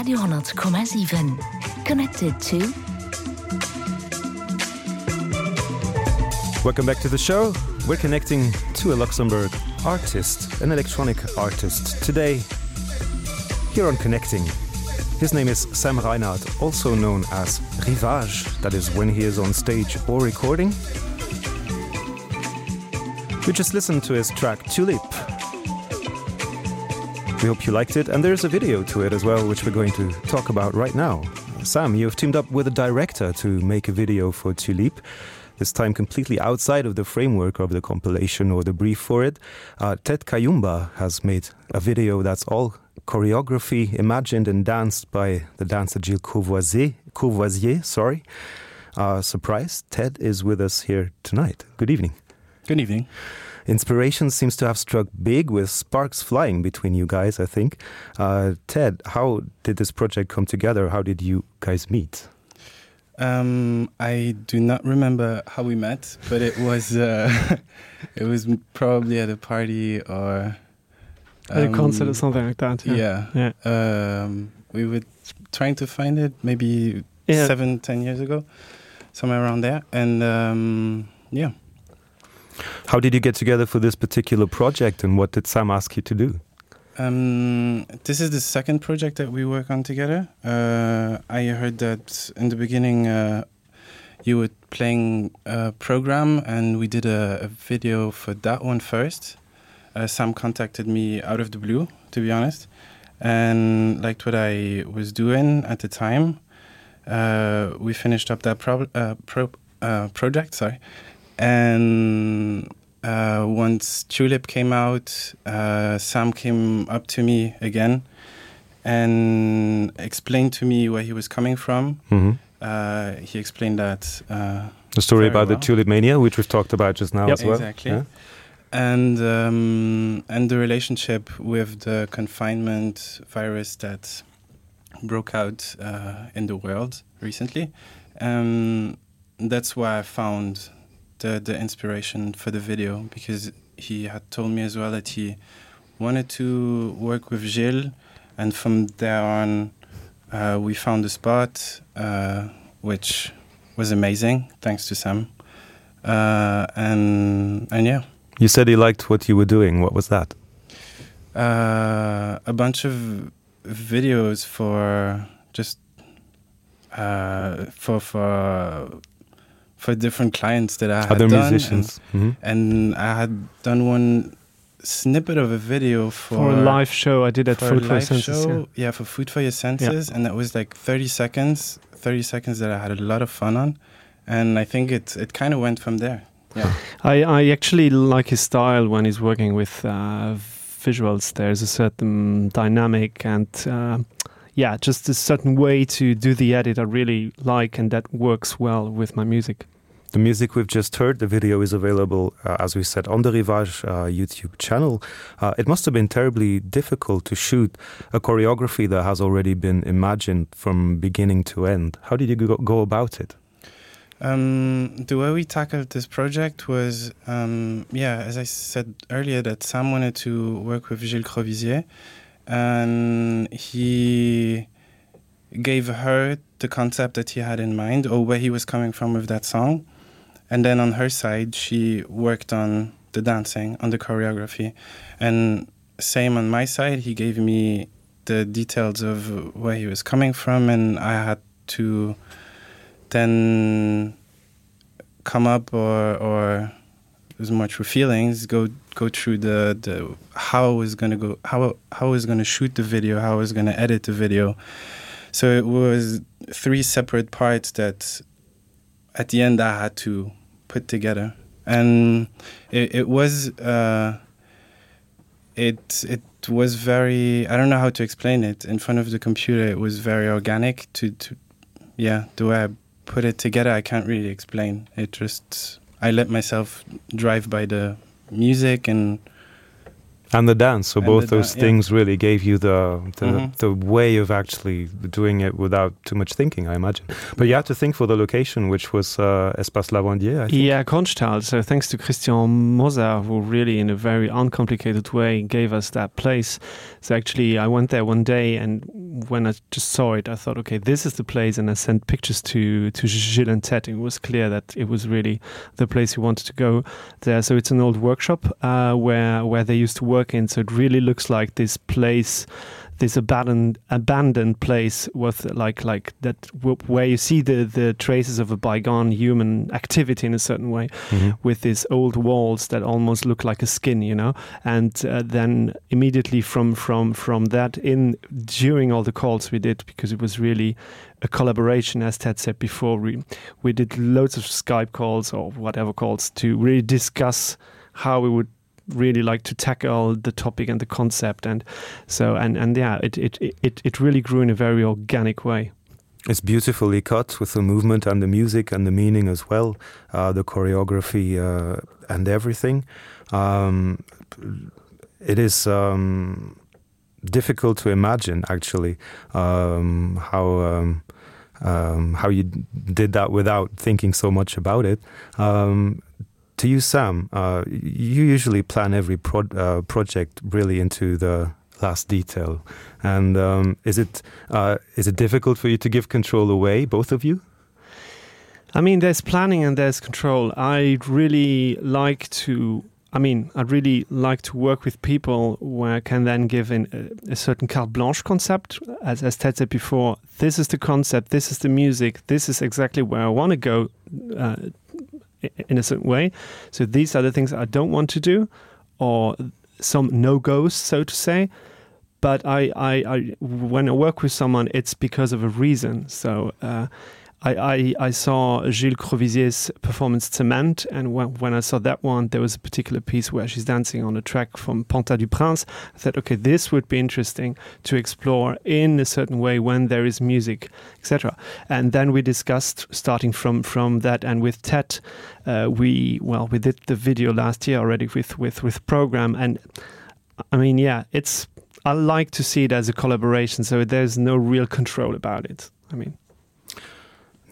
Radio 10,7 Connected to. Welcome back to the show. We're connecting to a Luxembourg artist, an electronic artist today here on Connecting. His name is Sam Reinhardt, also known as Rivage, that is when he is on stage or recording. We just listened to his track Tulip. We hope you liked it and there's a video to it as well, which we're going to talk about right now. Sam, you've teamed up with a director to make a video for Tulip, this time completely outside of the framework of the compilation or the brief for it. Uh, Ted Kayumba has made a video that's all choreography imagined and danced by the dancer Gilles Courvoisier, Courvoisier sorry. Uh, surprise, Ted is with us here tonight. Good evening. Good evening. Inspiration seems to have struck big with sparks flying between you guys, I think. Uh, Ted, how did this project come together? How did you guys meet? Um, I do not remember how we met, but it was uh, it was probably at a party or um, at a concert or um, something like that. Yeah, yeah. yeah. Um, we were trying to find it maybe yeah. seven, ten years ago, somewhere around there, and um, yeah. How did you get together for this particular project and what did Sam ask you to do? Um, this is the second project that we work on together. Uh, I heard that in the beginning uh, you were playing a program and we did a, a video for that one first. Uh, Sam contacted me out of the blue, to be honest, and liked what I was doing at the time. Uh, we finished up that pro uh, pro uh, project sorry and uh, once Tulip came out, uh, Sam came up to me again and explained to me where he was coming from. Mm -hmm. uh, he explained that uh, the story about well. the tulip mania, which we've talked about just now yep. as well. Exactly. Yeah. And, um, and the relationship with the confinement virus that broke out uh, in the world recently. Um, that's why I found the, the inspiration for the video because he had told me as well that he wanted to work with Gilles and from there on uh, we found a spot uh, which was amazing thanks to Sam uh, and and yeah you said he liked what you were doing what was that uh, a bunch of videos for just uh, for for for different clients that I had other done musicians and, mm -hmm. and I had done one snippet of a video for, for a live show I did at for food for senses, show, yeah. yeah for food for your senses yeah. and that was like 30 seconds 30 seconds that I had a lot of fun on and I think it it kind of went from there yeah I, I actually like his style when he's working with uh, visuals there's a certain dynamic and uh, yeah just a certain way to do the edit I really like and that works well with my music. The music we've just heard, the video is available, uh, as we said, on the Rivage uh, YouTube channel. Uh, it must have been terribly difficult to shoot a choreography that has already been imagined from beginning to end. How did you go, go about it? Um, the way we tackled this project was, um, yeah, as I said earlier, that Sam wanted to work with Gilles Crovizier, and he gave her the concept that he had in mind or where he was coming from with that song. And then on her side, she worked on the dancing, on the choreography. And same on my side, he gave me the details of where he was coming from, and I had to then come up or, or as much for feelings go go through the the how I was gonna go how how I was gonna shoot the video how I was gonna edit the video so it was three separate parts that at the end I had to put together and it, it was uh, it it was very I don't know how to explain it in front of the computer it was very organic to, to yeah the way I put it together I can't really explain it just I let myself drive by the music and. And the dance so and both the those yeah. things really gave you the the, mm -hmm. the way of actually doing it without too much thinking I imagine but you had to think for the location which was uh, Espace Lavandier I think. yeah Konsthal so thanks to Christian Moser who really in a very uncomplicated way gave us that place so actually I went there one day and when I just saw it I thought okay this is the place and I sent pictures to to Gilles and Ted it was clear that it was really the place he wanted to go there so it's an old workshop uh, where where they used to work in so it really looks like this place this abandoned abandoned place with like like that where you see the the traces of a bygone human activity in a certain way mm -hmm. with these old walls that almost look like a skin you know and uh, then immediately from from from that in during all the calls we did because it was really a collaboration as Ted said before we we did loads of Skype calls or whatever calls to really discuss how we would really like to tackle the topic and the concept and so and and yeah it it it it really grew in a very organic way. It's beautifully cut with the movement and the music and the meaning as well, uh, the choreography uh, and everything. Um, it is um, difficult to imagine actually um, how um, um, how you did that without thinking so much about it. Um, to you Sam, uh, you usually plan every pro uh, project really into the last detail. And um, is it uh, is it difficult for you to give control away both of you? I mean there's planning and there's control. I really like to I mean, I'd really like to work with people where I can then give in a, a certain carte blanche concept. As, as Ted said before, this is the concept, this is the music, this is exactly where I want to go uh, in a certain way. So these are the things I don't want to do or some no-goes, so to say. But I, I, I, when I work with someone, it's because of a reason. So uh, I, I, I saw Gilles Crovisier's performance Cement, and when, when I saw that one, there was a particular piece where she's dancing on a track from Panta du Prince. I said, okay, this would be interesting to explore in a certain way when there is music, etc. And then we discussed starting from, from that, and with Ted, uh, we well we did the video last year already with, with, with program, and I mean, yeah, it's I like to see it as a collaboration, so there's no real control about it. I mean.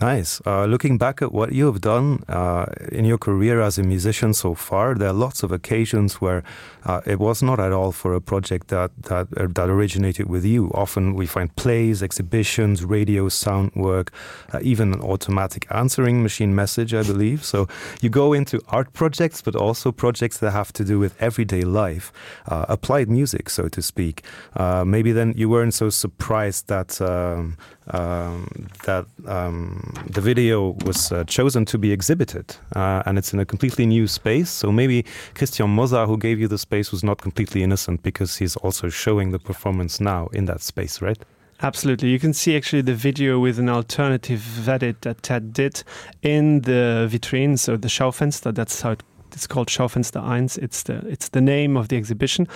Nice. Uh, looking back at what you have done uh, in your career as a musician so far, there are lots of occasions where uh, it was not at all for a project that that uh, that originated with you. Often we find plays, exhibitions, radio sound work, uh, even an automatic answering machine message, I believe. So you go into art projects, but also projects that have to do with everyday life, uh, applied music, so to speak. Uh, maybe then you weren't so surprised that um, um, that um, the video was uh, chosen to be exhibited uh, and it's in a completely new space. So maybe Christian Moza, who gave you the space, was not completely innocent because he's also showing the performance now in that space, right? Absolutely. You can see actually the video with an alternative edit that Ted did in the vitrine, so the Schaufenster, that's how it it's called Schaufenster 1. It's the it's the name of the exhibition.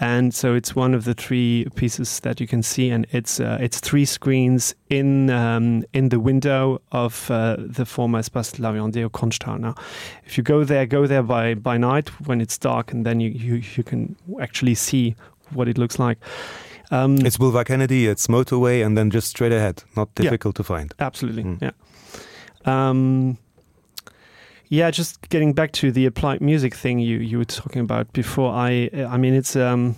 And so it's one of the three pieces that you can see and it's uh, it's three screens in um, in the window of uh, the former Espace Laviandier Konsthal. Now, if you go there, go there by by night when it's dark and then you you, you can actually see what it looks like. Um, it's Boulevard Kennedy, it's motorway and then just straight ahead, not difficult yeah, to find. Absolutely. Mm. Yeah. Um, Yeah, just getting back to the applied music thing you you were talking about before I I mean it's um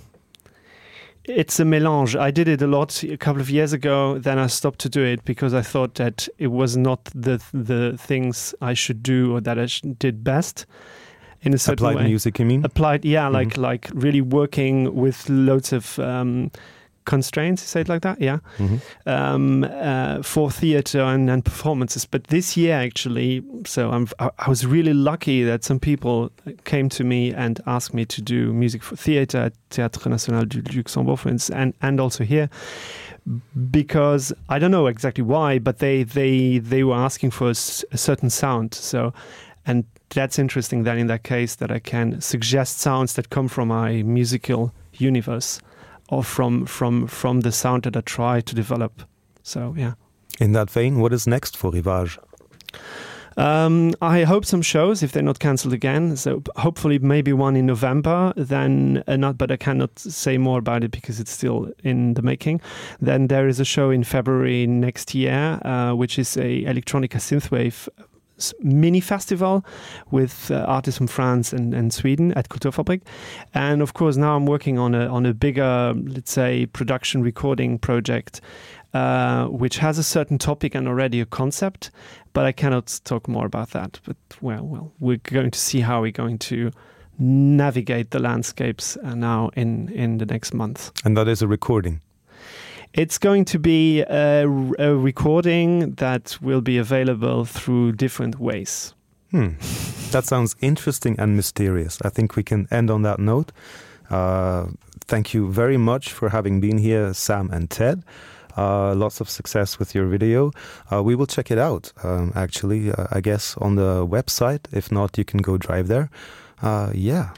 it's a melange. I did it a lot a couple of years ago, then I stopped to do it because I thought that it was not the the things I should do or that I did best in a certain applied way. music you mean applied yeah like mm -hmm. like really working with loads of um constraints say it like that yeah mm -hmm. um uh, for theater and, and performances but this year actually so I'm I, I was really lucky that some people came to me and asked me to do music for theater at Théâtre National du Luxembourg for instance, and and also here because I don't know exactly why but they they they were asking for a, a certain sound so and that's interesting that in that case that I can suggest sounds that come from my musical universe or from from from the sound that I try to develop so yeah in that vein what is next for Rivage? Um, I hope some shows if they're not cancelled again, so hopefully maybe one in November then uh, not but I cannot say more about it because it's still in the making. Then there is a show in February next year, uh, which is a electronica synthwave mini festival with uh, artists from France and, and Sweden at Kulturfabrik. And of course now I'm working on a, on a bigger, let's say production recording project, uh, which has a certain topic and already a concept, but I cannot talk more about that. But well, well, we're going to see how we're going to navigate the landscapes uh, now in, in the next month. And that is a recording. It's going to be a, a recording that will be available through different ways. Hmm. That sounds interesting and mysterious. I think we can end on that note. Uh, thank you very much for having been here, Sam and Ted. Uh, lots of success with your video. Uh, we will check it out, um, actually, uh, I guess on the website. If not, you can go drive there. Uh, yeah.